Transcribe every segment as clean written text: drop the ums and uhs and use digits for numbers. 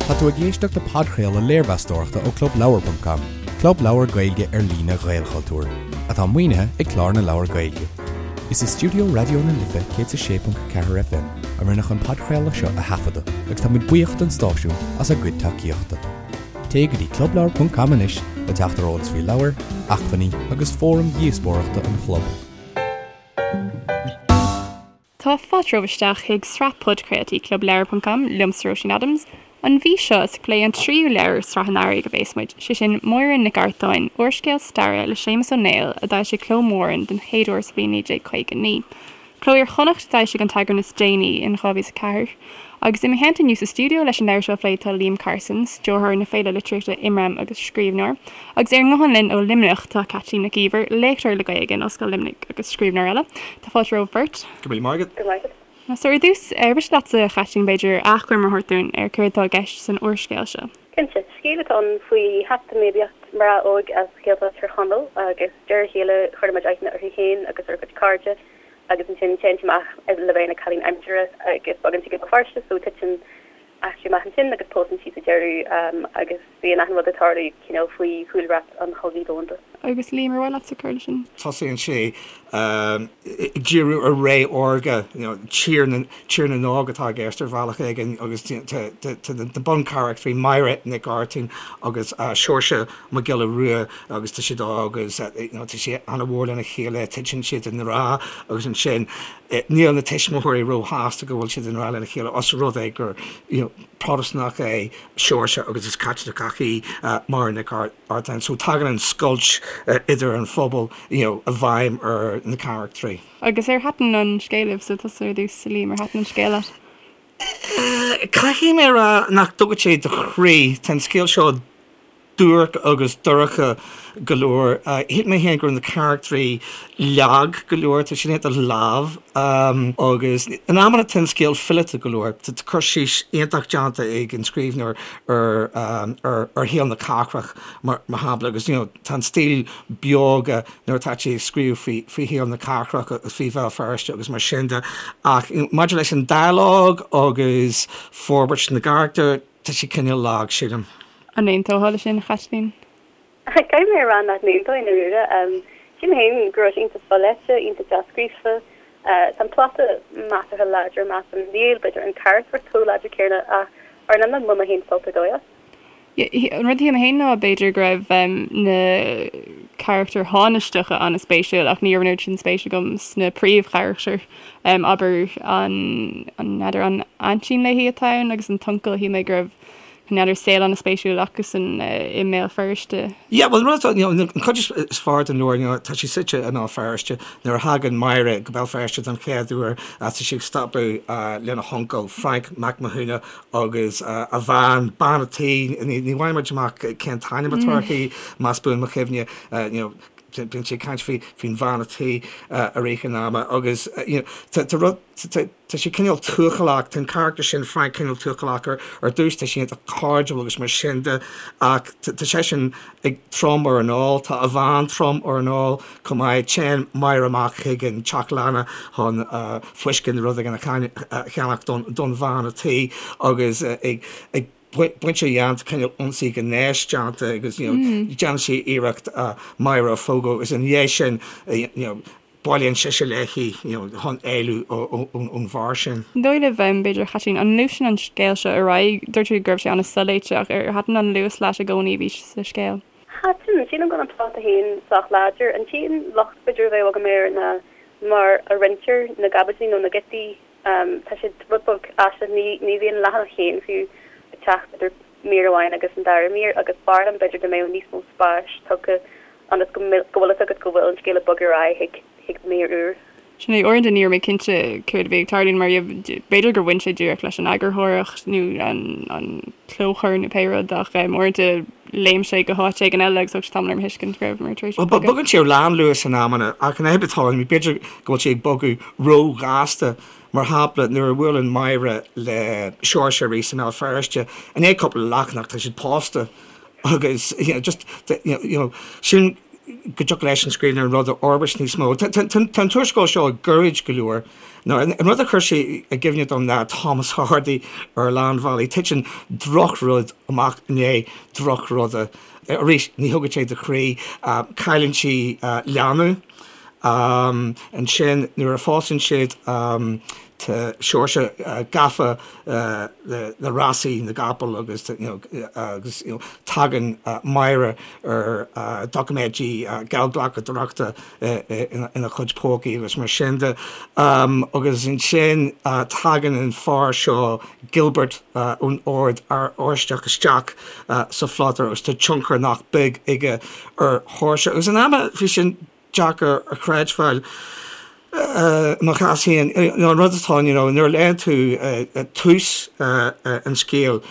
Tá tú ag éisteacht le podchraoladh léirmheastóireachta ó Clubleabhar ponc com, club leabhar Gaeilge ar líne Ghaelchultúir, atá maoinithe ag Clár na Leabhar Gaeilge. Is i stiúideo Raidió na Life 106.4 FM a rinneadh an podchraoladh seo a thaifeadadh agus tá muid buíoch don stáisiún as a gcuid tacaíochta. Téigh go dtí clubleabhar ponc com anois le teacht ar eolas faoi leabhair, acmhainní agus fóraim dhíospóireachta an chlub. Tá fáilte romhaibh isteach chuig sraith podchraoltaí Club Leabhar ponc com, liomsa Róisín Adams. An mhí seo is ag plé an tríú leabhar i sraith an Earraigh a bhéas muid, sé sin Máire Nic Artáin, úrscéal staire le Séamus Ó Néill a d'fhoilsigh Cló Mhúrn den chéad uair sa bhliain 1959. Cló Iar-Chonnacht a d'fhoilsigh an t-eagrán is déanaí in 2004. Agus i mo theannta inniu sa stiúideo leis an leabhar seo a phlé tá Liam Carson, stiúrthóir na féile litríochta Imram agus scríbhneoir. Agus ar an nguthán linn ó Luimneach tá Caitlín Nic Íomhair, léachtóir le Gaeilge in Ollscoil Luimnigh agus scríbhneoir eile. Tá fáilte romhaibh beirt. Go raibh míle maith agat. Go raibh maith agat. So ar dtús, ar mhiste leatsa, a Chaitlín, b'fhéidir, achoimre a thabhairt dúinn ar céard atá i gceist san úrscéal seo? Cinnte. Scéal atá ann faoi heachtairmaíocht mná óg as Gaeltacht Thír Chonaill agus de réir a chéile cuireann muid aithne uirthi féin agus ar a cuid cairde agus ansin téann sí amach le bheith ina cailín aimsire agus bogann sí go Béal Feirste so titeann eachtraí amach ansin agus pósann sí sa deireadh agus bíonn achan rud ag tarlú cineál faoi chúlra an Chogaidh Dhomhanda. Agus Liam, ar mhaith leatsa cur leis sin? Tosaíonn sé ag díriú ar ré órga, you know, tír na, tír na nÓg atá i gceist ar bhealach éigin agus tá na buncharachtraí Máire Nic Artáin agus Seoirse Mac Giolla Rua agus tá siad óg agus you know tá siad ana-mhór lena chéile, titeann siad i ngrá agus ansin níl na tuismitheoirí róshásta go bhfuil siad i ngrá lena chéile os rud é gur you know Protastúnach é Seoirse agus is Caitliceach í Máire Nic Artáin. So tagann an scoilt idir an phobal you know i bhfeidhm ar na carachtraí. Agus ar thaitin an scéal libhse, tusa ar dtús, a Liam, ar thaitin an scéal leat? Caithfidh mé a rá nach dtógann sé do chroí. Tá an scéal seo duairc agus dorcha go leor. Shíl mé féin go raibh na carachtraí lag go leor, tá siad iontach leamh agus in amanna tá an scéal fileata go leor. Tá cur síos iontach déanta ag an scríbhneoir ar ar shaol na cathrach mar shampla agus you know tá an stíl beoga nuair atá sé ag scríobh faoi faoi shaol na cathrach agus faoi Bhéal Feirste agus mar sin de ach maidir leis an dialóg agus forbairt na gcarachtar, Tá sé cineál lag, sílim. An aontófá leis sin, a Chaitlín? Caithfidh mé a rá nach n-aontóinn i ndáiríre. Sílim féin go raibh sé iontach soléite, iontach dea-scríofa. Tá an plota measartha láidir, measaim. Níl, b'fhéidir, an charachtracht chomh láidir céanna ach ar an iomlán bhain mé féin sult ar dóigh as. An rud a shíl mé féin ná b'fhéidir go raibh na carachtair thánaisteacha an-spéisiúil ach ní raibh an oiread sin spéis agam sna príomhcharachtair. Abair an, n'fheadar an aintín léi atá ann agus an t-uncail, shíl mé go raibh, n'fheadar, saol an-spéisiúil acusan i mBéal Feirste. Yeah, bhuel, an rud atá, you know, an chuid is fearr den leabhar, you know, tá sé suite i mBéal Feirste. Nuair a thagann Máire go Béal Feirste don chéad uair, tá sí ag stopadh lena huncail, Frank Mac Mathúna, agus a bhean, bean a' tí, ní bhfaigheann muid amach cén t-ainm atá uirthi, más buan mo chuimhne, you know, bíonn sé ag caint faoi, faoin bhean a' tí i rith an ama agus you know, tá, tá rud, tá, tá sé cineál tuathalach, tá an carachtar sin, Frank, cineál tuathalach ar, ar dtús, tá sé iontach cairdiúil agus mar sin de ach tá, tá seisean ag trom ar an ól, tá a bhean trom ar an ól chomh maith. Téann Máire amach chuig an teach leanna chun fuisce nó rud éigin a cheannach don bhean a' tí agus ag baint a dhéanta, cineál ionsaí gnéis déanta agus you know déanann sí iarracht Máire a phógadh agus ina dhiaidh sin you know bailíonn sise léi you know chun éalú ón bhfear sin. An dóigh libh, b'fhéidir, a Chaitlín, an ngluaiseann an scéal seo ar aghaidh? Dúirt tú go raibh sé an-soléite ach ar thaitin an luas leat i gcónaí a bhí sa scéal? Thaitin. Sílim go bhfuil an plota féin sách láidir. An t-aon locht b'fhéidir a bheadh agam air ná mar a roinntear na gcaibidlí nó na giotaí. Tá siad rud beag aisteach. Ní ní bhíonn leathanach féin fiú ag teacht idir mír amháin agus an dara mír agus b'fhearr liom b'fhéidir dá mbeadh níos mó spáis tugtha ionas go go bhfuil fhios agat go bhfuil an scéal ag bogadh ar aghaidh chuig chuig mír úr. Sin é, uaireanta ní raibh mé cinnte céard a bhí ag tarlú mar b'fhéidir gur bhain sé díreach leis an eagarthóireacht nó an clóchur nó pé rud ach uaireanta léim sé go háit éigin eile agus thóg sé tamall orm a thuiscint go rabhamar tar éis bogadh. Bogann sé ar lánluas in amanna ach an fhadhb atá ann, b'fhéidir go bhfuil sé ag bogadh róghasta. Mar shampla, nuair a bhuaileann Máire le Seoirse arís i mBéal Feirste, i ndiaidh cúpla leathanach tá siad pósta agus you know just you know sin. go dtiocfadh leis an scríbhneoir an rud a fhorbairt níos mó. Tá an t-úrscéal seo gairid go leor. Nó an rud a chuir sé i gcuimhne dom ná Thomas Hardy ar a lán bealaí. Titeann drochrud amach i ndiaidh drochruda. Arís, ní thugann sé do chroí. Cailleann sí leanbh. Ansin, nuair a phósann siad, tá Seoirse gafa le rásaí na gcapall agus agus tagann Máire ar doiciméidí geallghlacadóireachta ina chuid pócaí agus mar sin de. Agus ansin tagann an fear seo, Gilbert, ón Ord Oráisteach isteach sa phlota agus tá tionchar nach beag aige ar Sheoirse. Agus in amanna bhí sin deacair a chreidbheáil i mo chás féin. An rud atá ann, you know, nuair a léann tú tús an scéil,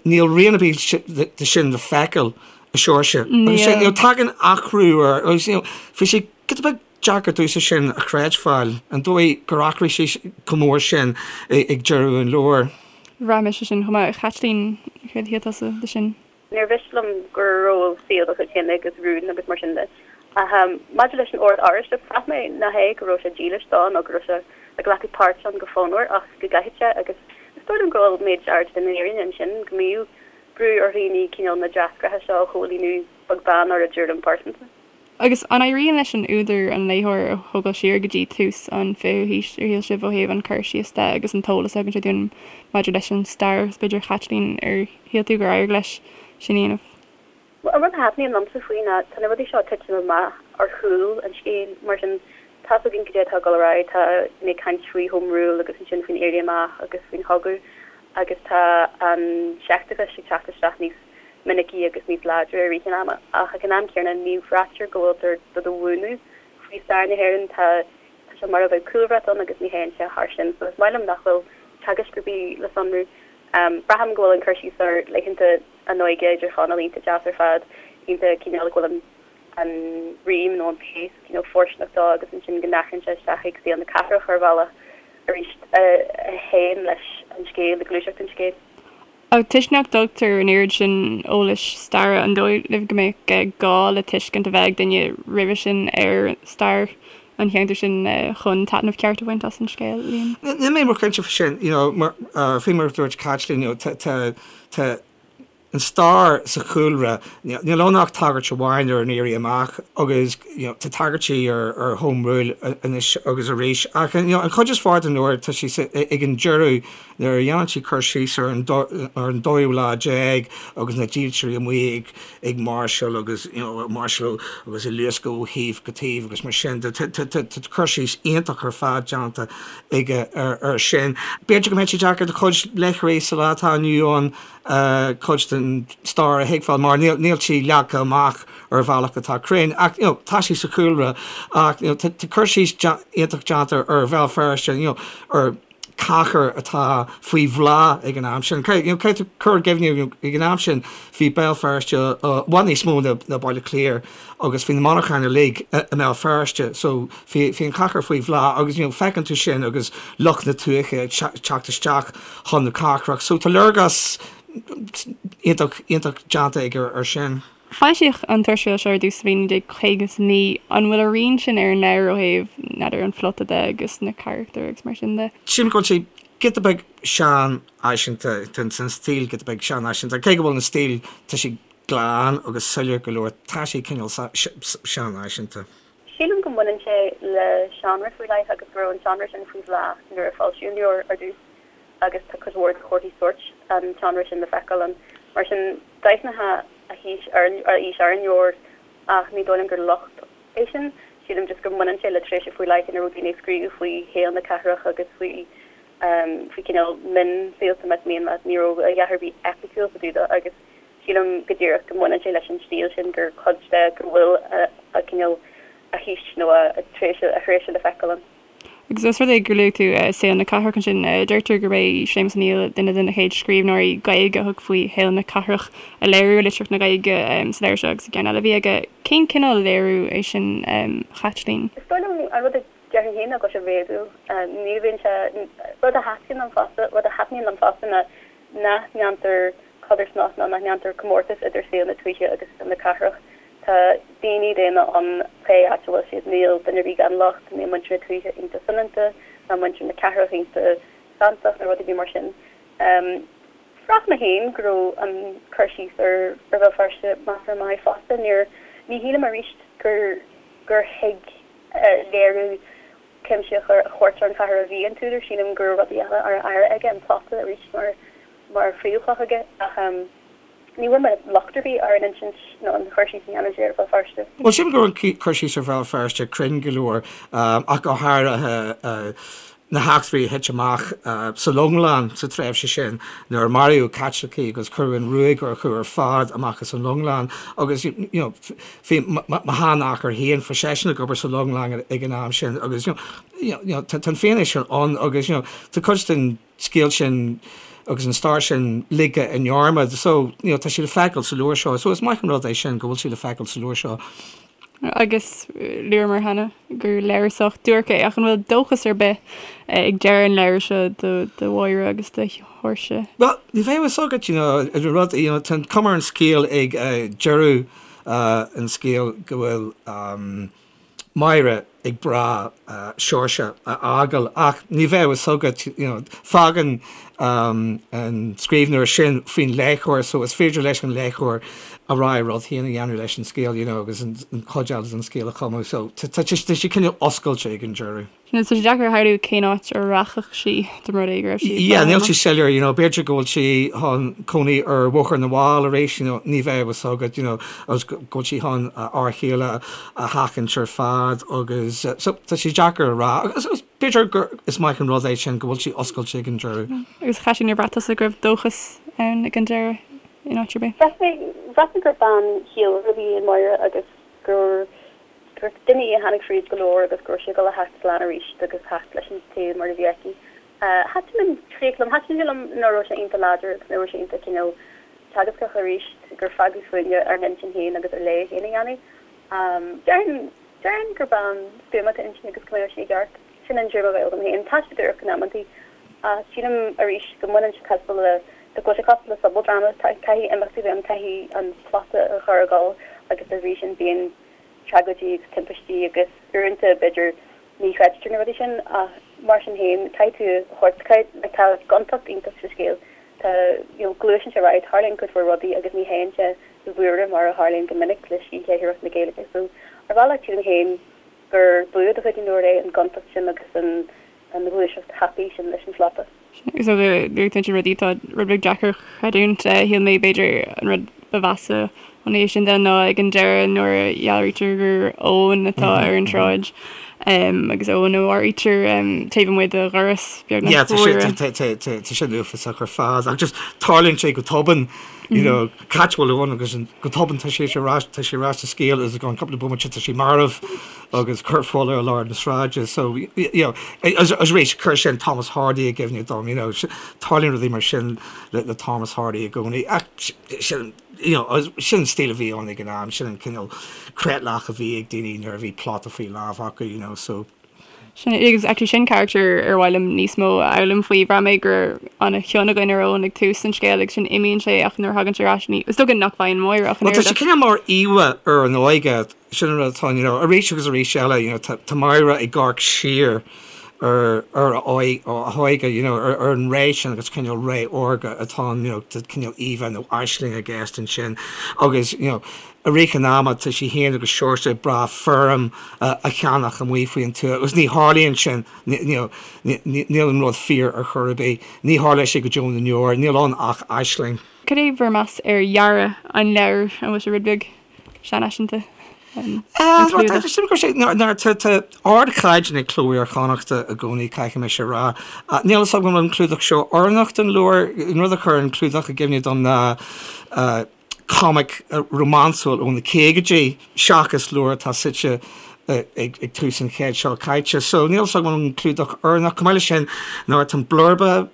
níl rian ar bith de sin le feiceáil i Seoirse. Agus you know, tagann athrú air agus you know, bhí sé giota beag deacair domhsa sin a chreidbheáil, an dóigh gur athraigh sé chomh mór sin ag deireadh an leabhair. Bhraith mise sin chomh maith. A Chaitlín, céard a shíl tusa de sin? Níor mhiste liom go raibh saol dá chuid féin agus rún agus mar sin de. Ach maidir leis an Ord Oráisteach, bhraith mé nach é go raibh sé dílis dó nó go raibh sé ag glacadh páirt ann go fonnmhar ach go gcaithfeadh sé agus is dóigh liom go bhfuil méid áirid den fhírinne ansin, go mbíodh brú ar dhaoine cineál na dreasachtaí seo a chomhlíonadh beag beann ar a dtuairim pearsanta. Agus an éiríonn leis an údar an léitheoir a thógáil siar go dtí tús an fichiú haois, ar shíl sibh, ó thaobh an cur síos de agus an t-eolas a thugann sé dúinn maidir leis an stair? Agus b'fhéidir, a Chaitlín, ar shíl tú gur éirigh leis sin a dhéanamh? Bhuel, an rud a thaitníonn liomsa faoi ná tá na rudaí seo ag titim amach ar chúl an scéil, mar sin tá's againn cad é atá ag dul ar aghaidh, tá daoine ag caint faoi Home Rule agus ansin faoin Éirí Amach agus faoin chogadh agus tá an seicteachas ag teacht isteach níos minicí agus níos láidre i rith an ama, ach ag an am céanna ní bhraitear go bhfuiltear do do mhúineadh faoi stair na hÉireann. Tá sé mar a bheadh cúlbhrat ann agus ní théann sé thar sin, so is maith liom nach bhfuil teagaisc ar bith le sonrú. Braithim go bhfuil an cur síos ar laethanta a n-óige idir Chonaill iontach deas ar fad, iontach cineál go bhfuil an an rím nó an pace cineál fóirsteanach dó agus ansin go n-athraíonn sé isteach ag saol na cathrach ar bhealach arís a théann leis an scéal, le gluaiseacht an scéil. Ach toisc nach dtugtar an oiread sin eolais staire, an dóigh libh go mbeadh gá le tuiscint a bheith ag duine roimhe sin ar stair an cheantair sin chun taitneamh ceart a bhaint as an scéal, Liam? Níl mé róchinnte faoi sin. You know, mar, faoi mar a dúirt Caitlín, you know, tá, tá, tá an stair sa chúlra, níl ann ach tagairt amháin ar an Éirí Amach agus, you know, tá tagairtí ar, ar Home Rule anois agus arís ach, you know, an chuid is fearr den leabhar tá sí sa, ag an deireadh Nuair a dhéanann sí cur síos ar an ar an dóú lá déag agus na dílseoirí amuigh ag ag máirseáil agus you know ag máirseáil agus ag luascadh ó thaobh go taobh agus mar sin de tá tá cur síos iontach ar fad déanta aige ar ar sin. B'fhéidir go mbeadh sé deacair do chuid léitheoirí sa lá atá inniu ann cuid den stair a thuigbheáil mar níl níl sí leagtha amach ar bhealach atá cruinn ach you know tá sí sa chúlra ach you know tá cur síos iontach déanta ar Bhéal Feirste you know ar cathair atá faoi bhláth ag an am sin. Caithfidh tú cur i gcuimhne ag an am sin bhí Béal Feirste i bhfad níos mó ná Baile Átha Cliath agus bhí na monarcháin uilig i mBéal Feirste so bhí an chathair faoi bhláth agus you know feiceann tú sin agus lucht na tuaithe ag teacht isteach chun na cathrach so tá léargas iontach iontach déanta aige ar sin. Foilsíodh an t-úrscéal seo ar dtús sa bhliain 1959. An bhfuil a rian sin ar an leabhar ó thaobh, n'fheadar, an phlota de agus na carachtair agus mar sin de? Sílim go bhfuil sé giota beag seanfhaiseanta, tá an stíl giota beag seanfhaiseanta. Cé go bhfuil an stíl, tá sé glan agus soiléir go leor, tá sé cineál seanfhaiseanta. Sílim go mbaineann sé le seánra faoi leith agus go raibh an seánra sin faoi bhláth nuair a foilsíodh an leabhar ar dtús agus tá cuid mhór de chomharthaí sóirt an tseánra sin le feiceáil ann. Mar sin, d'aithneofá a haois ar a aois ar an leabhar ach ní dóigh liom gur locht é sin. Sílim just go mbaineann sé le tréimhse faoi leith ina raibh daoine ag scríobh faoi shaol na cathrach agus faoi faoi cineál mionshaolta más mian leat. Ní raibh a dhath ar bith eipiciúil fá dtaobh de agus sílim go díreach go mbaineann sé leis an stíl sin gur cuid de go bhfuil a cineál a haois nó a tréimhse a thréimhse le feiceáil ann. Agus os rud é gur luaigh tú saol na cathrach ansin, deirtear gurb é Séamus Ó Néill duine de na chéad scríbhneoirí Gaeilge a thug faoi shaol na cathrach a léiriú i litríocht na Gaeilge sa leabhar seo agus i gceann eile a bhí aige. Cén cineál léiriú é sin, a Chaitlín? Is dóigh liom an rud a déarfainn féin ná go bhfuil sé réadúil. Ní bhíonn sé, rud a thaitníonn liom fosta, rud a thaitníonn liom fosta ná nach ndéantar codarsnacht nó nach ndéantar comórtas idir saol na tuaithe agus saol na cathrach. Tá daoine daonna ann pé áit a bhfuil siad, níl duine ar bith gan locht, níl muintir na tuaithe iontach soineanta, ná muintir na cathrach iontach santach nó rud ar bith mar sin. Bhraith mé féin go raibh an cur síos ar Bhéal Feirste measartha maith fosta. Níor, ní shílim arís gur, gur thuig léiriú cuimsitheach a thabhairt ar an chathair a bhí an t-údar. Sílim go raibh rudaí eile á áireamh aige, an plota arís mar, mar phríomhchloch aige ach ní bhfuair mé locht ar bith ar an insint nó an chur síos a dhéanann sé ar Bhéal Feirste. Bhuel, sílim go raibh an cur síos ar Bhéal Feirste cruinn go leor, ach go háirithe na heachtraí a thit amach sa Longlann sa tréimhse sin nuair a maraíodh Caitlicigh agus cuireadh an ruaig orthu ar fad amach as an Longlann agus you know bhí mo sheanathair féin, bhí seisean ag obair sa Longlann ag an am sin agus you know tá an fianaise sin ann agus you know tá cuid den scéal sin agus an stair sin ligthe i ndearmad so you know tá sé le feiceáil sa leabhar seo so is maith an rud é sin go bhfuil sé le feiceáil sa leabhar seo. Agus luamar cheana gur leabhar sách duairc é ach an bhfuil dóchas ar bith ag deireadh an leabhair seo do Mháire agus do Sheoirse? Bhuel ní bheadh a fhios agat you know an rud you know tá an cuma ar an scéal ag deireadh an scéil go bhfuil Máire ag brath Seoirse a fhágáil ach ní bheadh a fhios agat, you know, fágann an scríbhneoir sin faoin léitheoir so is féidir leis an léitheoir a rogha rud féin a dhéanamh leis an scéal, you know, agus an chuid eile den scéal a chumadh so tá sé cineál oscailte ag an deireadh. Tá sé deacair a shamhlú cén áit a rachadh sí dá mba rud é go raibh sí ag Yeah, níl sé soiléir, you know, b'fhéidir go bhfuil sí chun cónaí ar Bhóthar na bhFál arís, you know, ní bheadh a fhios agat, you know, agus go bhfuil sí chun a fhear chéile a sheachaint ar fad agus so tá sé deacair a rá agus agus b'fhéidir gur is maith an rud é sin go bhfuil sí oscailte ag an deireadh. Agus a Chaitlín, ar bhraith tusa go raibh dóchas ann ag an deireadh in áit ar bith? Bhraith mé, bhraith mé gur bean chiallmhar a bhí i Máire agus gur gur duine í a tháinig fríd go leor agus go raibh sí ag dul a theacht slán arís agus theacht leis an saol mar a bhí aici. Thaitin an chríoch liom. Thaitin sé liom nach raibh sé iontach láidir agus nach raibh sé iontach cineál teagascach arís, gur fágadh fúinne ár n-intinn féin agus ár léamh féin a dhéanamh. Déarfainn, déarfainn gur bean stuama atá inti agus go mbeadh sí i gceart. Sin an tuairim a bheadh agam féin. Tá sé duairc in amantaí ach sílim arís go mbaineann sé cosúil le, go bhfuil sé cosúil le sobaldráma, caithfidh imeachtaí a bheith ann, caithfidh an plota a chur ag dul agus dá bhrí sin bíonn tragóidí agus timpistí agus uaireanta b'fhéidir ní chreidtear na rudaí sin ach mar sin féin caithfidh tú a thabhairt, like tá gontacht iontach sa scéal, tá you know gluaiseann sé ar aghaidh, tarlaíonn cuid mhór rudaí agus ní théann sé i bhfuaire mar a tharlaíonn go minic le scíthléitheoireacht na Gaeilge so ar bhealach sílim féin gur bua de chuid an leabhair é an gontacht sin agus an an ghluaiseacht thapaidh sin leis an phlota. So luaigh tú ansin rudaí atá rud beag deacair a chreidiúint. Shíl mé b'fhéidir an rud ba mheasa ón thaobh sin de ná ag an deireadh nuair a dhealraítear gur Eoin atá ar an tsráid agus Eoin a mharaítear taobh amuigh de dhoras beagnach. Yeah, tá sin uafásach ar fad ach just tarlaíonn sé go tobann, you know, cá háit a bhfuil Eoin agus go tobann tá sé ar ais, tá sé ar ais sa scéal agus i gceann cúpla bomaite tá sé marbh. agus corp folamh i lár na sráide so you know agus arís chuir sin Thomas Hardy i gcuimhne dom you know tarlaíonn rudaí mar sin le le Thomas Hardy i gcónaí ach sin you know sin an stíl a bhí ann ag an am sin an cineál creatlach a bhí ag daoine nuair a bhí plota faoi lámh acu you know so Sin agus actually sin character ar mhaith liom níos mó a fhoghlaim faoi. Bhraith mé go raibh an-chion againn ar Eoin ag tús an scéil agus sin imíonn sé ach nuair a thagann sé ar ais ní is dócha nach bhfaigheann Máire ach an Well tá sé cineál mar íomhá ar an óige sin an rud atá you know arís agus arís eile you know tá tá Máire ag amharc siar ar ar a a hóige you know ar ar an ré sin agus cineál ré órga atá ann you know tá cineál íomhá nó aisling i gceist ansin agus you know I rith an ama tá sí féin agus Seoirse ag brath feirm a cheannach amuigh faoin tuath agus ní tharlaíonn sin, níl an rud fíor ar chor ar bith, ní tharlóidh sé go deo na ndeor, níl ann ach aisling. Cad é bhur meas ar dhearadh an leabhair? An bhfuil sé rud beag seanfhaiseanta? An clúdach? Tá ardchaighdeán ag Cló Iar-Chonnachta i gcónaí, caithfidh mise a rá. Níl a fhios agam an bhfuil an clúdach seo oiriúnach don leabhar. An rud a chuir an clúdach i gcuimhne dom ná comic rómánsúil ó na caogaidí seachas leabhar atá suite ag tús an chéid seo caite. So níl a fhios agam an clúdach oiriúnach. Chomh maith leis sin, nuair atá an blurba.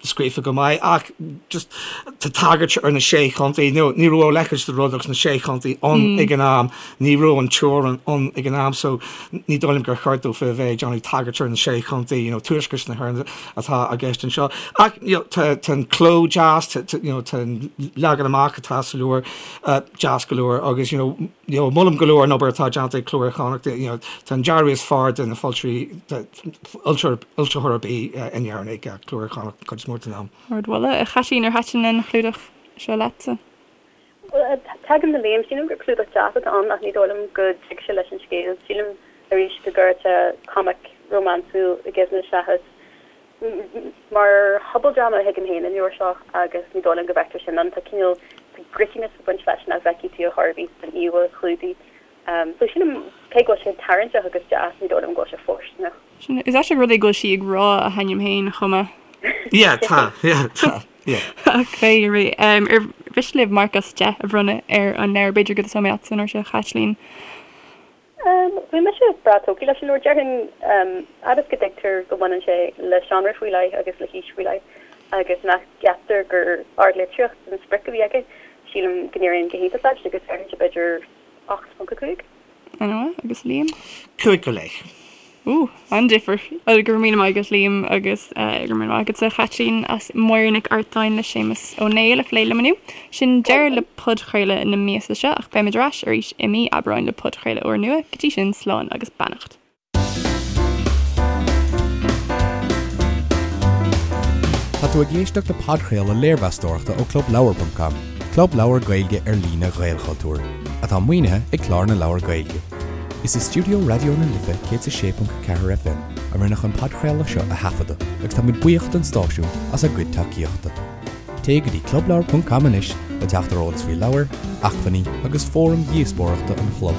scríofa go maith ach just tá tagairt ar na sé chontae, nó ní raibh a leithéid de rud agus na sé chontae ann ag an am, ní raibh an teorainn ann ag an am so ní dóigh liom gur cheart dófa a bheith ag déanamh tagairt ar na sé chontae, you know, tuaisceart na hÉireann atá i gceist anseo. Ach you know, tá tá an cló deas, tá tá you know, tá an leagan amach atá sa leabhar uh, deas go leor agus you know, you know, molaim go leor an obair atá déanta ag Cló Iar-Chonnacht, you know, tá an dearadh is fearr de na foilsitheoirí fhoilsitheoir ar bith in Éirinn ag Cló Iar-Chonnacht cuid is mó den am. Ardmholadh. A Chaitlín, ar thaitin an chlúdach seo leatsa? Bhuel, tagaim le Liam. Sílim gur clúdach deas atá ann ach ní dóigh liom go dtig sé leis an scéal. Sílim, arís, go gcuirfeadh sé comic rómánsúil i gcuimhne seachas mar shobaldráma a thuigim féin an leabhar seo agus ní dóigh liom go bhfeictear sin ann. Tá cineál, tá grittiness ag baint leis nach bhfeicfidh tú ar chor ar bith san íomhá chlúdaigh. So sílim, cé go bhfuil sé tarraingteach agus deas, ní dóigh liom go bhfuil sé fóirsteanach. Sin, is aisteach rud é go bhfuil sí ag rá a hainm féin chomh maith. Yeah, tá, yeah, tá, yeah. Ach pé ar bith, ar mhiste libh marc as 10 a bhronnadh ar an leabhar? B'fhéidir go dtosóidh mé leatsa an uair seo, a Chaitlín. Bhí mise breá tógtha leis an leabhar. Déarfainn, fhad is go dtuigtear go mbaineann sé le seánra faoi leith agus le haois faoi leith agus nach gceaptar gur ardlitríocht an sprioc a bhí aige, sílim go n-éiríonn go hiontach leis agus déarfainnse b'fhéidir 8.5. An-mhaith. Agus Liam? 5 go leith. Ooh, an-difear. Go raibh míle maith agat Liam agus go raibh míle maith agatsa a Chaitlín as Máire Nic Artáin le Séamus Ó Néill a phlé liom inniu. Sin deireadh le podchraoladh na míosa seo ach beimid ar ais arís i mí Aibreáin le podchraoladh úrnua. Go dtí sin, slán agus beannacht. Tá tú ag éisteacht le podchraoladh léirmheastóireachta ó ClubLeabhar.com, club leabhar Gaeilge ar líne Ghaelchultúir, atá maoinithe ag Clár na Leabhar Gaeilge. Is i stiúideo Raidió na Life 106.4 FM a rinneadh an podchraoladh seo a thaifeadadh agus táimid buíoch don stáisiún as a gcuid tacaíochta. Téigh go dtí clubleabhar.com anois le teacht ar eolas faoi leabhair, acmhainní agus fóraim dhíospóireachta an chlub.